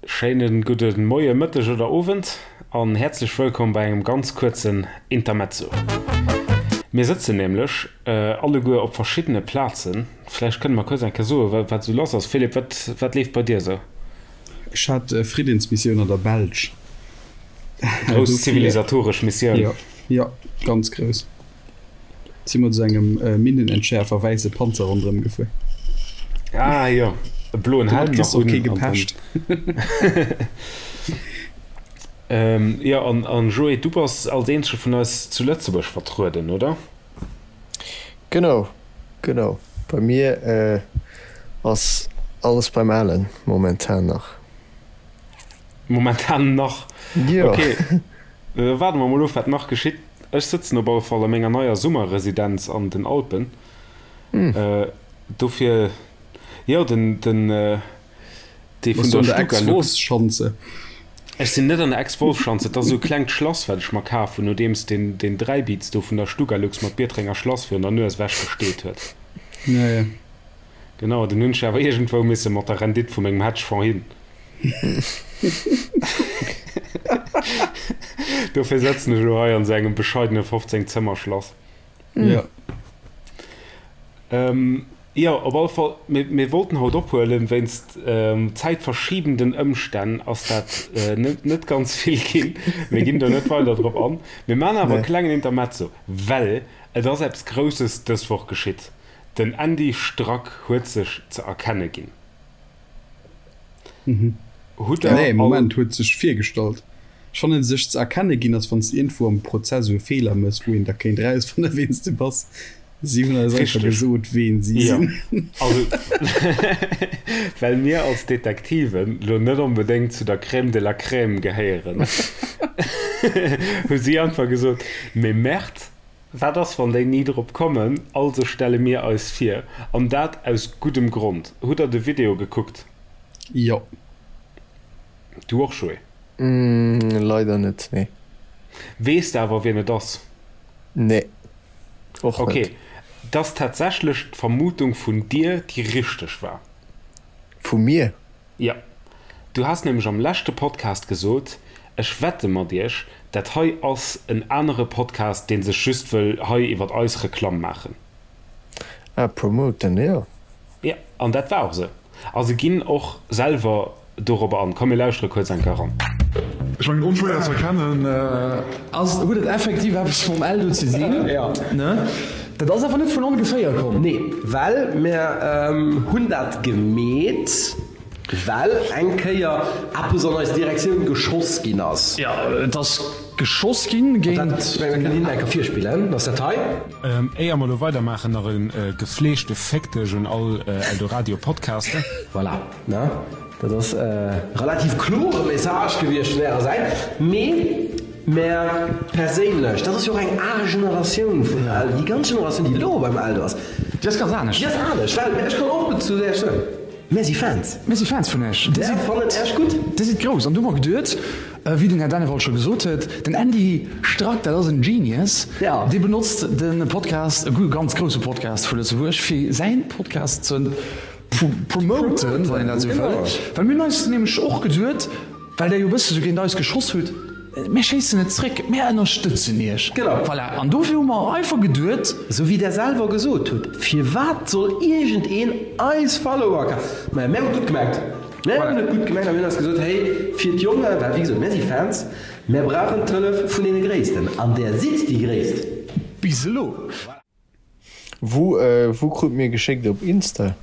Schéinen gudden Moien, Mëtteg oder Owend an häerzlech wëllkomm bei engem ganz kuerzen Intermezzo. Mir sëtzen nämlech alleguer op verschiddene Plazen. Vläicht kënne mer kuerz eng Kéier soen, wat esou lass ass. Philippe, wat, wat leeft bei dir esou? Ech hat Friddensmissioun an der Belsch. Grouss zivilisatoresch Missioun. Jo, jo, ganz grouss. Si mat esou engem Minnenentschäerfer wäisse Panzer ronderëm gefuer. Ah jo, e bloen Helm nach un. Kee gepecht. Jo, an Joé, du bass als eenzege vun eis zu Lëtzebuerg vertrueden, oder? Genau, genau. Bei mir ass alles beim Alen momentan nach. Momentan nach? Jo. Ok, da waarde mer mol of, wat nach geschitt. Ech sëtzen op alle Fall a menger neier Summerresidenz an den Alpen. Dofir, jo, den, den, dee vun der Stuka-Lux. Ex-Wolfsschanze. Ech sinn net an der Ex-Wolfsschanze. Et ass esou e klengt Schlass, wat ech mer kaf hunn, nodeems deen, deen Dräibiz do vun der Stugalux mer d'Biertrenger Schlass virun der Nues ewechgesteet huet. Ja, ja. Genau, den hunn ech awer iergendwou misse mat der Rendite vu mengem Hedgefonds hin. Dofir sëtzen ech elo hei an esou engem bescheidene 15 Zëmmer Schlass. Ja. Ähm, jo, op alle Fall, mir, mir wollten haut ophuelen, wéinst ähm, zäitverschiebenden Ëmstänn ass dat äh, net, net ganz vill ginn. Mir ginn do net weider drop an. Mir maachen awer e Nee. klengen Intermezzo, well et ass eppes Grousses dës Woch geschitt. Den Andy Strack huet sech ze erkenne ginn. Hutt der Nee, Moment, huet sech virgestallt. Ech fannen, sech ze erkenne ginn ass, wann s de iergendwou am Prozess esou e Feeler mëss, wou een da kéint erausfannen, ween s de bass. Si hunn eis einfach gesot, ween si sinn. Also, well mir als Detektiven lo net onbedéngt zu der Crème de la Crème gehéieren, hu si einfach gesot, Mais merde, Wat ass, wann déi ni drop kommen? Also stelle mir eis vir. An dat aus guddem Grond. Hutt der de Video gekuckt? Jo. Du och, Joé? Leider net, nee. Weess de awer, wien et ass? Nee, och net. Ok, 't ass tatsächlech d'Vermutung vun dir, déi richteg war. Vu mir? Jo. Du has nämlech am leschte Podcast gesot, ech wette mat iech, dat hei ass en anere Podcast, dee sech just wëll hei iwwert eis Reklamm maachen. Ah, promoten, jo. Jo, an dat war och esou. A se ginn och selwer dorobber an. Komm, mir lauschtere kuerz eng Kéier eran. Ech mengen onschwéier ze erkennen. Ass, huet et effektiv eppes mam Eldo ze sinn? Jo. Ne? Dat ass awer net vun ongeféier komm. Nee, well mir hunn dat gemeet, well eng Kéier eppes an eis Direktioun geschoss ginn ass. Jo, et ass geschoss ginn géint. An dat, ech mengen, mir kënnen hinnen eng Kéier virspillen. Ass dat hei? Éier mer elo weidermaachen, nach e gefleegte Féck dech un all Eldoradio Podcaster. Voilà, ne? Dat ass e relativ klore Message gewiescht vun Ärer Säit. Mee mär perséinlech, dat ass jo och eng al Generatioun vun Eldo, déi ganz Generatioun, déi elo beim Eldo ass, Déi ass ganz anescht. Déi ass anescht, well ech kann och zu Äech soen, mär si Fans. Mir si Fans vun Äech. Mär fannen Äech gutt. Dir sidd grouss. An du hu mer geduet, wéi den Här Dennewald scho gesot huet, den Andy Strack, dat ass en Genius, dee benotzt de Podcast, e ganz grousse Podcast vu Lëtzebuerg, fir säin Podcast ze Promoten, wann een dat esou wëll. Well mir hunn eis nämlech och geduet, well Der jo e bësse sou géint eis geschoss hutt, Mir schéissen net zréck, mir ënnerstëtzen Iech. Genau. Voilà. An dofir hu mer einfach geduet. Esou wéi Der selwer gesot hutt, firwat soll iergendeen eis Follower kafen? Maja, mär hunn et gutt gemengt. Mär hunn et gutt gemengt a mir hunn eis gesot, Hey, fir d'Jongen, well wéi gesot, mär si Fans, mär brauchen d'Hëllef vun deene Gréissten. An Der sidd déi Gréisst. Bis elo. Wou wou krut mir geschéckt op Insta?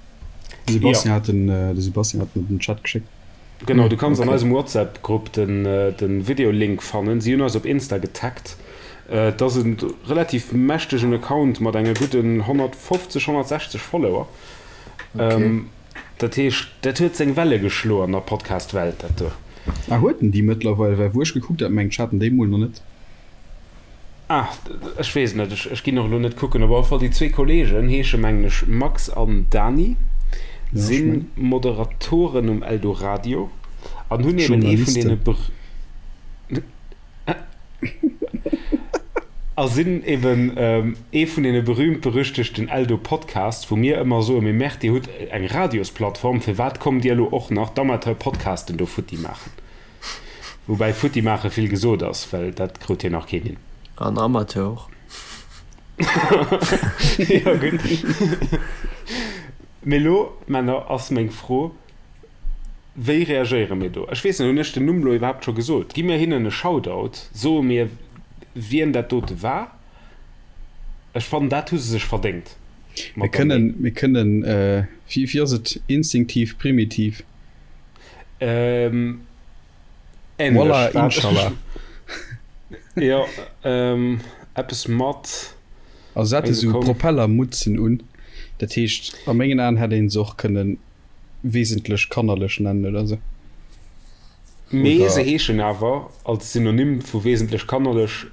De Sebastian hat den de Sebastian hat den den Chat geschéckt. Genau, du kanns an eisem WhatsApp Grupp den den Video Link fannen. Si hunn eis op Insta getaggt. Et ass en relativ mächtegen Account mat enge gudden 150, 160 Follower. Dat heescht, dat huet seng Welle geschloen an der Podcast Welt dat do. Ah huet en déi mëttlerweil? Well wou ech gekuckt hat, mengt ech hat en déi mol nach net. Ah, ech weess et net, ech ginn och elo net kucken. Op alle Fall déi zwee Kolleegen heesche mengen ech Max an Dani, si Moderatoren um Eldoradio an hunn eben ee vun deene. A sinn eben ee vun deene berühmt-berüchtegten Eldo-Podcasts, wou mir ëmmer soen, Mee Merde, dir hutt eng Radiosplattform, firwat kommt dir elo och nach d'Amateur-Podcasten do futti maachen? Woubäi futti maache vill gesot ass, well dat krut jo nach keen hin. An Amateur och. Jo, gutt. Mee elo, Männer, ass meng Fro, Wéi reagéiere mir do? Ech weess net, hunn ech den Numm elo iwwerhaapt scho gesot? Gi mir hinnen e Shoutout? Soe mir, wien dat dote war? Ech fannen, dat hu se sech verdéngt Mir mat der kënnen, Mail. mir kënnen, wéi, wéi ass et, instinktiv, primitiv? Ähm, änlech. Wallah, Inshallah. Jo, eppes mat. Also se hate sou Propellermutzen un, dat heescht, a mengen Aen hätt ee se och kënnen wesentlech kannerlech nennen oder sou. Mee se heeschen awer als Synonym vu wesentlech kannerlech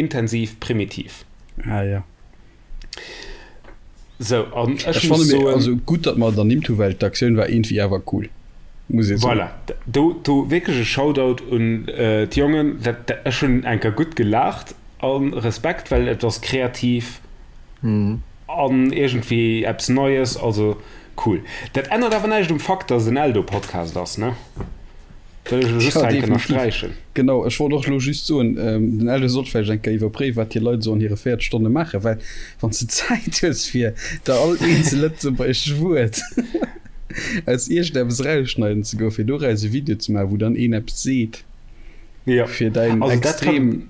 intensiv primitiv. Ah jo. Sou, an ech muss soen. Ech also gutt, datt mer et ernimmt hu, well d'Aktioun war iergendwéi awer cool, muss ee soen. Voilà, do, do wierklech e Shoutout un d'Jongen. Dat, ech hunn eng Kéier gutt gelaacht a Respekt, well et ass kreativ. An iergendwéi eppes Neies, also cool. Dat ännert awer näischt um Fakt, dass et en Eldo-Podcast ass, ne? Wëll ech elo just Ja, hei eng Kéier definitiv. ënnersträichen. Genau, ech wollt och elo just soen, den Eldo sollt vläicht eng Kéier iwwerpréiwen, wat hir Leit esou an hire 40 Stonne maachen, well wann s de Zäit hues fir der all eenzel lëtzebuergesch Wuert aus iergendeppes erausschneiden ze goen, fir doraus e Video ze maachen, wou dann een eppes seet, Jo, fir däin also dat kann. extrem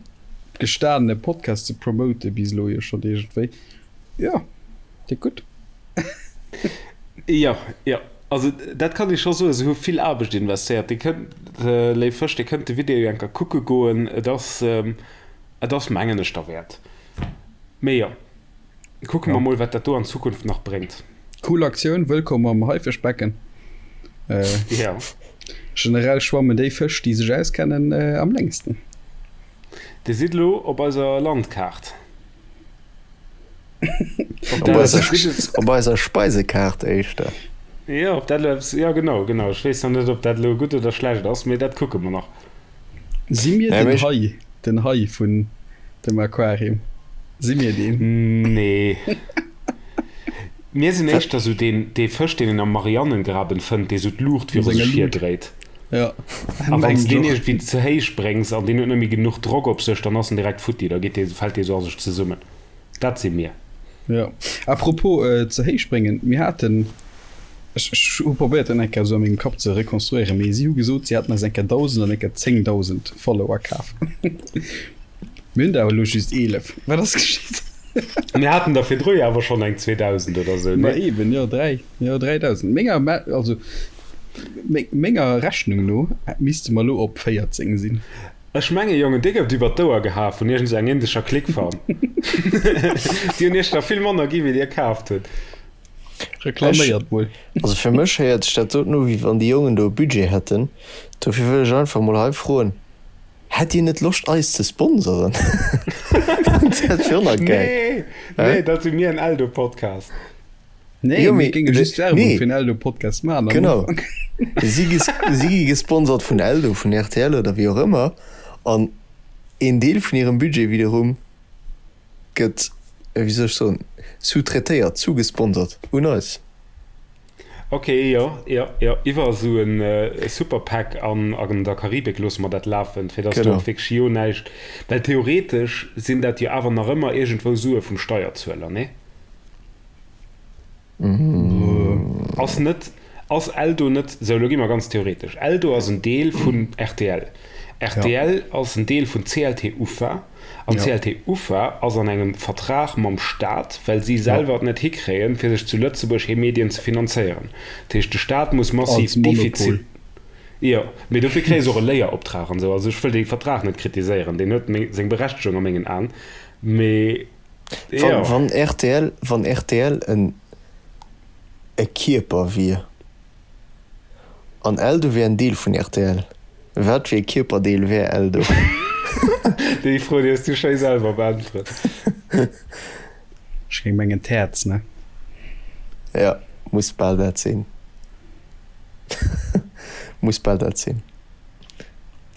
gestanene Podcast ze promoten, bis elo jo schonn iergendwéi. Jo, déck gutt. Jo, jo, also dat kann ee scho soen, se hu vill Aarbecht investéiert. Dir kënnt, léif Fësch, dir kënnt de Video jo eng Kéier kucke goen. Et ass, et ass mengen ech derwäert. Mee jo, kucke mer mol, wat dat do an Zukunft nach bréngt. Cool Aktioun, wëllkomm am Haifischbecken. Jo. Generell schwammen déi Fësch, déi sech auskennen, am längsten. Dir sidd elo op eiser Landkaart. Op eiser, op eiser Speisekaart éischter. Jo, ob dat elo eppes, jo genau, genau. Ech weess nach net, ob dat elo gutt oder schlecht ass, mee dat kucke mer nach. Si mir den Hai, den Hai vun dem Aquarium? Si mir deen? Nee. Mir sinn éischter sou deen, dee Fësch, deen een am Marianengraben fënnt, dee sou d'Luucht viru sech hirdréit. Ja. A wann s de deen iergendwéi ze héich bréngs an deen huet net méi genuch Drock op sech, dann ass en direkt futti, da geet dee, fält dee sou a sech zesummen. Dat si mir. Jo. À propos ze héich bréngen, mir haten, ech, ech hu probéiert dat eng Kéier esou a mengem Kapp ze rekonstruéieren, mee si hu gesot, si hätten eis eng Kéier 1.000 an eng Kéier 10.000 Follower kaf. Mir hunn der awer elo just 11. Wat ass geschitt? Mir haten der virdru jo awer schonn eng 2.000 oder sou, Ma eben, jo, 3, jo, 3.000. Menger, also menger Rechnung no misste mer elo op 14 sinn. Ech menge Jongen, dir gouft iwwer d'Ouer geha vun iergend sou eng indescher Clickfarm. Déi hunn iech der vill manner gi wéi dir kaaft hutt. Reklaméiert mol. Also fir mech héiert sech dat doten u wéi wann déi Jongen do e Budget hätten. Dofir wëll ech einfach mol hei froen, Hätt dir net Loscht eis ze sponsoren? Dat wier och nach geil. Nee, nee, dat si mir en Eldo-Podcast. Nee, jo, mir géinge just Werbung nee. fir en Eldo-Podcast maachen. Genau. Si gi, si gi gesponsert vun Eldo, vun rtl oder wéi och ëmmer. An een Deel vun hirem Budget wiederum gëtt, wéi soll ech soen, sous-traitéiert, zugesponsert un eis. Ok, jo, jo, jo, iwwer esou e Super-PAC an an der Karibik loosse mer dat lafen, fir dass do och wierklech jo näischt, well theoretesch sinn dat jo awer nach ëmmer iergendwou Sue vum Steierzueler, nee? Ass net, ass Eldo net, sou, elo gi mer ganz theoretesch, Eldo ass en Deel vun rtl, rtl ass en Deel vun CLT Ufa. An d'CLT Ufa ass an engem Vertrag mam Staat, well si selwer et net hikréien, fir sech zu Lëtzebuerg hir Medien ze finanzéieren. Dat heescht, de Staat muss massiv Defizit. Jo, mee dofir kréie se och e Léieroptrag an esou. Also ech wëll dee Vertrag net kritiséieren, deen huet seng Berechtegung a mengen Aen, mee jo. Wann rtl, wann rtl en e Kierper wier. An Eldo wier en Deel vun rtl. Wat fir e Kierperdeel wär Eldo? Déi Fro déi hues du schéi selwer beäntwert. Ech géing mengen d'Häerz, ne? Jo, muss bal dat sinn. Muss bal dat sinn.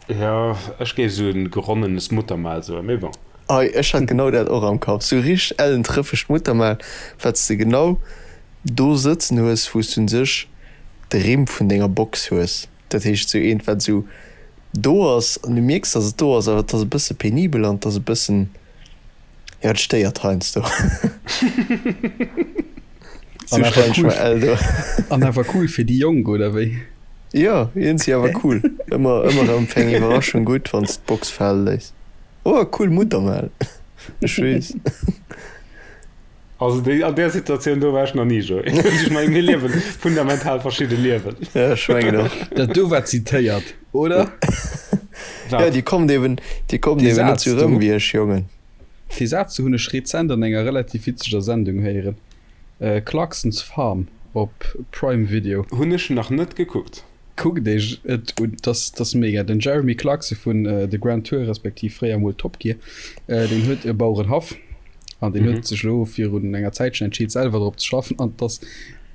Jo, ech géif esou en geronnenes Muttermal soen, mee bon. Hei, ech hat genau dat och am Kapp. Sou richteg ellen trëffegt Muttermal, wat s de genau do sëtzen hues, wou s du un sech de Rimm vun denger Box hues. Dat heescht, sou eent, wat sou do ass an du mierks, dass et do ass, awer et ass e bësse penibel an et ass e bëssen, jo, et stéiert heiansdo. Sou stellen ech mer Eldo. An awer cool fir déi Jonk, oder wéi? Jo, iergendwéi awer cool. Ëmmer, ëmmer erëm fir eng Iwwerraschung gutt, wann s d'Box fale léiss. Oh, cool Muttermal. Ech weess. Also déi, an där Situatioun do war ech nach ni, Joé. Ech mengen, mir liewen fundamental verschidde Liewen. Ja, ech mengen och. Dat do war zitéiert, oder? Wat? Ja, déi kommt eben, déi kommt eben net sou rëm wéi ech, Jongen. Dee Saz do hunn ech rezent an enger relativ witzeger Sendung héieren, Clarkson's Farm op Prime Video. Hunn ech nach net gekuckt. Kuckt iech et un, dat ass mega. Den Jeremy Clarkson vun The Grand Tour, respektiv fréier mol Top Gear, deen huet e Bauerenhaff an deen huet sech elo virun enger Zäitchen entscheet selwer drop ze schaffen an et ass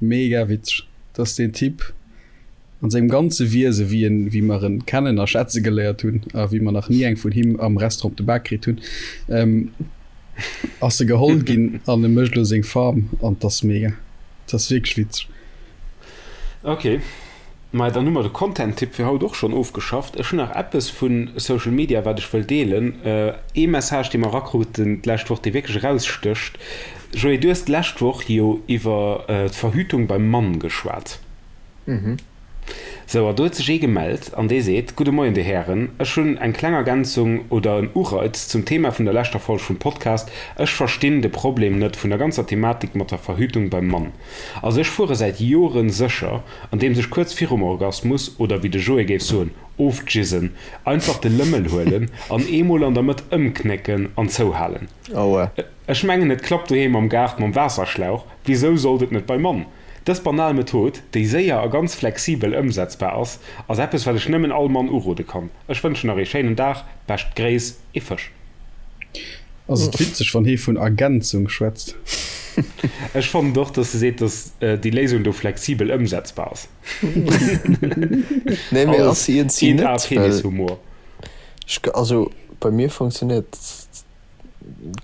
mega witzeg, dass deen Typ an sengem ganze Wiese wéi en, wéi mer en kennen a schätze geléiert hunn a wéi mer nach ni eng vun him am Restaurant op de Bak kritt hunn, ass e geholl ginn an e mécht elo seng Farm an 't ass mega. 't ass wierklech witzeg. Ok, maja dann hu mer de Content-Tipp fir haut och schonn ofgeschafft. Ech hunn nach eppes vu Social Media wat ech wëll deelen. Ee Message dee mer erakruten d'lescht Woch, dee wierklech erausstécht. Joé, du hues d'lescht Woch jo iwwer d'Verhütung beim Mann geschwat. Sou, a do huet sech ee gemellt an dee seet, Gudde Moien Dir Hären, ech hunn eng kleng Ergänzung oder en Ureiz zum Thema vun der leschter Folg vum Podcast. Ech verstinn de Problem net vun der ganzer Thematik mat der Verhütung beim Mann. Also ech fuere säit Joren sécher, andeems ech kuerz virum Orgasmus, oder wéi de Joé géif soen, ofjizzen, einfach de Lëmmel huelen an eemol an der Mëtt ëmknécken an zouhalen. Aua. Ech mengen et klappt doheem am Gaart mam Waasserschlauch, wisou sollt et net beim Mann? Dës banal Method, déi séier a ganz flexibel ëmsetzbar ass, ass eppes wat ech nëmmen all Mann urode kann. Ech wënschen nach ee schéinen Dag, bescht Gréiss, ee Fësch. Ass et witzeg wann hee vun Ergänzung schwätzt? Ech fannen och dass e seet dass déi Léisung do flexibel ëmsetzbar ass. Nee mee ass se iergendwéi net, well Penishumor. Ech, also bei mir funktionéiert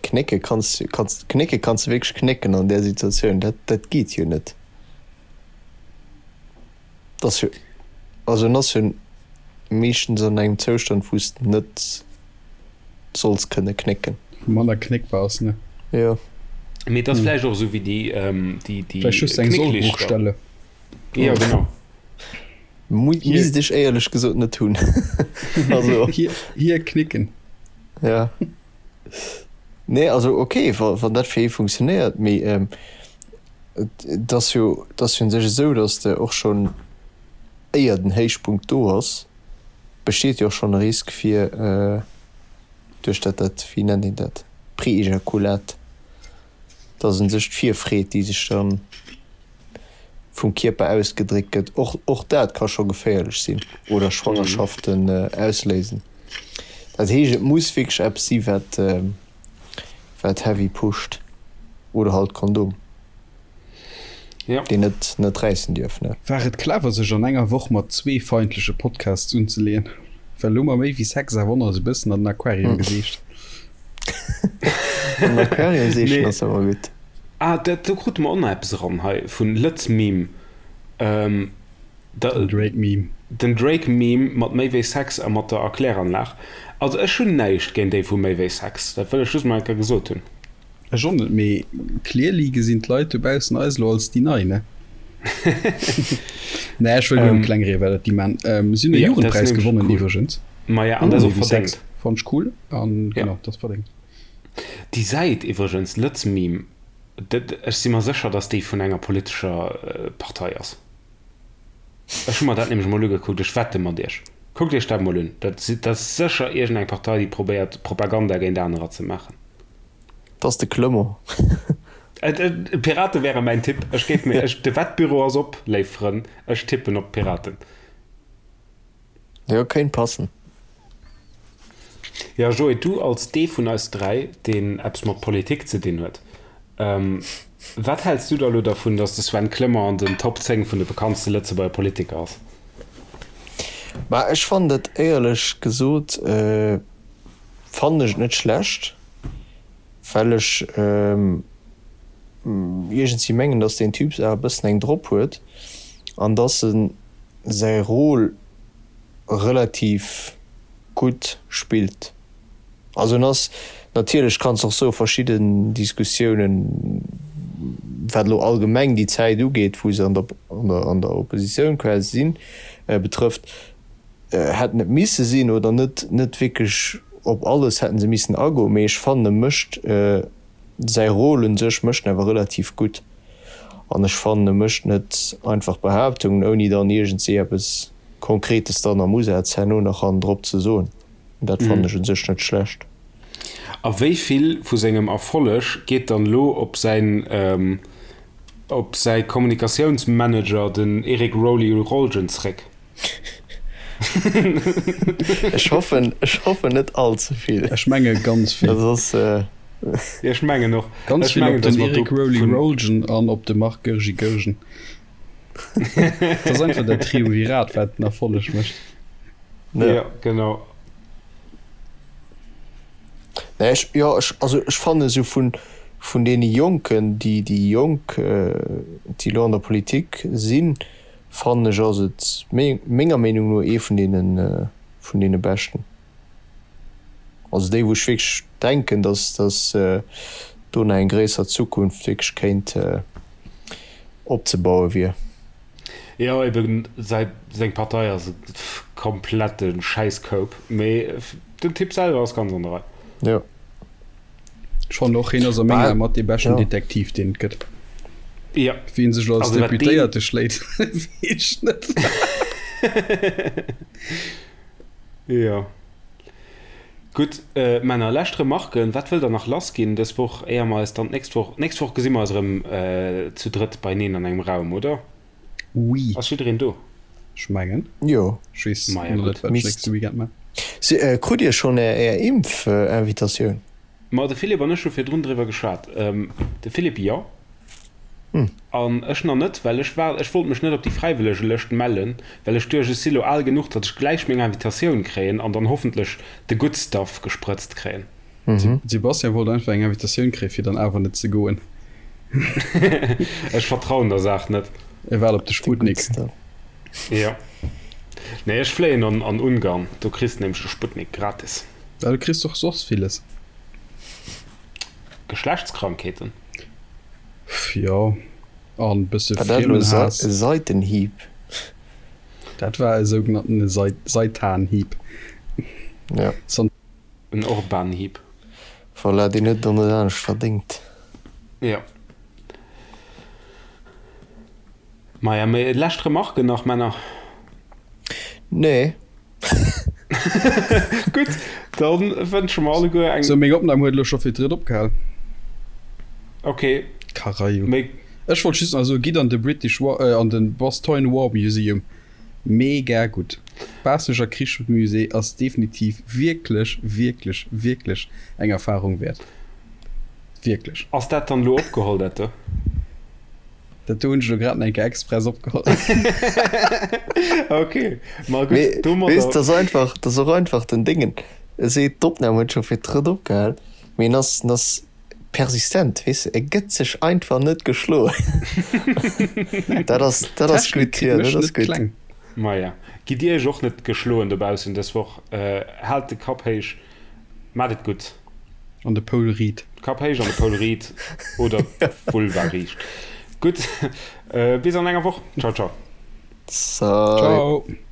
Knécke kanns du, kanns, knécke kanns du wierklech knécken an där Situatioun, dat, dat geet jo net. Dat ass jo, also en ass jo meeschtens an engem Zoustand, wou s de net solls kënne knécken. Wou manner knéckbar ass, ne? Jo. Mee et ass vläicht och esou wéi déi, déi, déi Vläicht just eng Knécklichter. Sollbruchstelle. Jo, genau. Misst ech éierlech gesot net hunn. Also. Hier, hier knicken. Ja. Nee, also okay, wa, wann dat fir ee funktionéiert, mee ähm, et ass jo, et ass jo un sech esou, datt de och schonn éier den Héichpunkt do ass, besteet jo och schonn e Risk fir äh, duerch dat, dat, wéi nennt een dat, Preejakulat, datt un sech d'Virfreed, déi sech dann vum Kierper ausgedréckt gëtt, och, och dat ka scho geféierlech sinn oder Schwangerschaften ausléisen. Dat heescht, et muss wierklech eppes si wat, wat heavy pusht oder halt Kondom, Ja. deen net, net räissen dierf, ne? War et clever sech an enger Woch mat zwee feindleche Podcasts unzeleeën? Well elo hu mer méi wéi Sex a Wonner esou bëssen an den Aquarium geseecht. An den Aquarium seechen ass ëmmer gutt. Ah, dat, do krute mer och nach eppes eran hei vun Lëtz-Meme. Ähm, da, Den Drake-Meme. Den Drake-Meme mat méi wéi Sex a mat der Erkläranlag. Also ech hunn näischt géint déi vu méi wéi Sex, dat wëll ech just mol eng Kéier gesot hunn. Ech och net, mee clearly gesinn d'Leit dobaussen eis elo als déi Nei, ne? Nee, ech wëll guer net kleng rieden, well dat déi man. Ähm, si hunn e Ja, dat ass Jugendpräis nämlech gewonnen cool. iwwregens. Maja, an dat ass Méi och wéi Sex. verdéngt. Fannt ech cool an Ja. genau, dat ass verdéngt. Déi Säit iwwregens, Lëtzmeme, dat, ech si mer sécher, datt déi vun enger politescher Partei ass. Ech hu mer dat nämlech emol ugekuckt, ech wette mat iech. Kuckt iech dat emol un, dat dat ass sécher iergendeng Partei, déi probéiert, Propaganda géint anerer ze maachen. Dat ass de Clement. D'Pirate wäre mäin Tipp. Ech géif mir, ech, de Wettbüro ass op, léif Frënn, ech tippen op d'Piraten. Jo, kéint passen. Jo, Joé, du als dee vun eis 3, deen eppes mat Politik ze dinn huet, wat häls du da elo dervun, datt de Sven Clement an den Top 10 vun de bekanntste Lëtzebuerger Politiker ass? Bah, ech fannen dat éierlech gesot, fannen ech et net schlecht. Well ech iergendwéi mengen, dass deen Typ awer e bëssen eng drop huet an dass e säi Rôle relativ gutt spillt. Also en ass, natierlech kanns de och soe verschidden Diskussiounen, wat elo allgemeng déi Zäit ugeet, wou se an der an der Oppositioun quasi sinn, betrëfft, hätten et misse sinn oder net net wierklech op alles hätten se missen agoen, mee ech fannen e mécht säi Rôle un sech mécht en awer relativ gutt an ech fannen e mécht net einfach Behaaptungen ouni dann iergendsee eppes Konkretes dann am Usaz herno nach hannendrop ze soen. Dat fannen ech un sech net schlecht. A wéi vill vu sengem Erfolleg geet dann elo op säin op säi Kommunikatiounsmanager, den Eric Roly Rolgen, zréck? Ech hoffen, ech hoffen net all ze vill. Ech menge ganz vill. Dat ass. Ech mengen och. Ganz vill op den Eric Roly Rolgen an op de Marc Goergi Goergen. Dat ass einfach dat Triumvirat, wat den Erfolleg mécht. Jo, genau. Nee, ech, jo, ech, also ech fannen esou vun, vun deene Jonken, déi, déi Jonk, déi elo an der Politik sinn, fannen ech ass et menger Meenung no ee vun deene, vun deene Beschten. Also déi wou ech wierklech denken, datt, datt do nach eng gréisser Zukunft wierklech kéint opzebaue wier. Jo eben, säi, seng Partei ass e komplette Schäisskoup, mee den Typ selwer ass ganz an der Rei. Jo. Ech fannen och, hien ass a mengen Ae mat dee beschten Detektiv, deen et gëtt. Jo. Wéi en sech elo als Deputéierte schléit, weess ech net. Jo. Gutt, Männer, lescht Remarken. Wat wëllt Der nach lassginn dës Woch, éier mer eis dann d'nächst Woch, d'nächst Woch gesi mer eis erëm zu drëtt beineen an engem Raum, oder? Oui. Ass jiddereen do? Ech mengen. Jo. Ech weess nach net, wat ech nächste Weekend man. Krut Dir schonn Är Impf-Invitatioun? Ma de Philippe an ech hu virdrun driwwer geschwat. De Philippe jo. An ech nach net, well ech war, ech wollt mech net op déi Fräiwëllegelëscht mellen, well ech duecht, ech si lo al genuch, datt ech gläich meng Invitatioun kréien an dann hoffentlech de good stuff gesprëtzt kréien. Sebastian wollt einfach eng Invitatioun kréien, fir dann awer net ze goen. Ech vertrauen der Saach net. E waart op de Sputnik. Jo. Nee, ech fléien an an Ungarn, do kriss de nämlech de Sputnik gratis. Ja, du kriss och soss villes. Geschlechtskrankheeten? Jo, an bësse War dat elo Friemenhaass. e Seitenhieb? Dat war e sougenannten Seitanhieb. Ja. En Orbanhieb. Voilà, deen huet et och net anescht verdéngt. Jo. Maja, mee lescht Remarken nach, Männer? Nee. Gutt, da wënsche mer alleguer eng. Sou, meng Opnam huet elo scho fir d'drëtt opgehal. Ok. Karajo. Méi. Ech wollt just nach soen, gitt an de British War, an de Bastogne War Museum. Mega gutt. Baasseneger Krichsmusée ass definitiv wierklech, wierklech, wierklech eng Erfahrung wäert. Wierklech. Ass dat dann elo opgeholl, dat do? Dat do hunn ech elo grad nach eng Kéier express opgeholl. Ok, ma gutt, Mee domadder. weess, dat ass einfach, dat ass och einfach den Déngen. E seet, d'Opnam huet scho fir d'drëtt opgehal, mee en ass, en ass persistent, weess de, e gëtt sech einfach net geschloen. Dat ass, dat ass Technik gutt, kritt jo, mech dat ass net gutt. kleng. Maja, gitt Dir iech och net geschloen dobaussen dës Woch. Haalt de Kapp héich, mat et gutt. An de Poul riit. Kapp héich an de Poul riit oder d'Vulva riicht. Gutt, bis an enger Woch. Ciao, ciao. Salut. Ciao.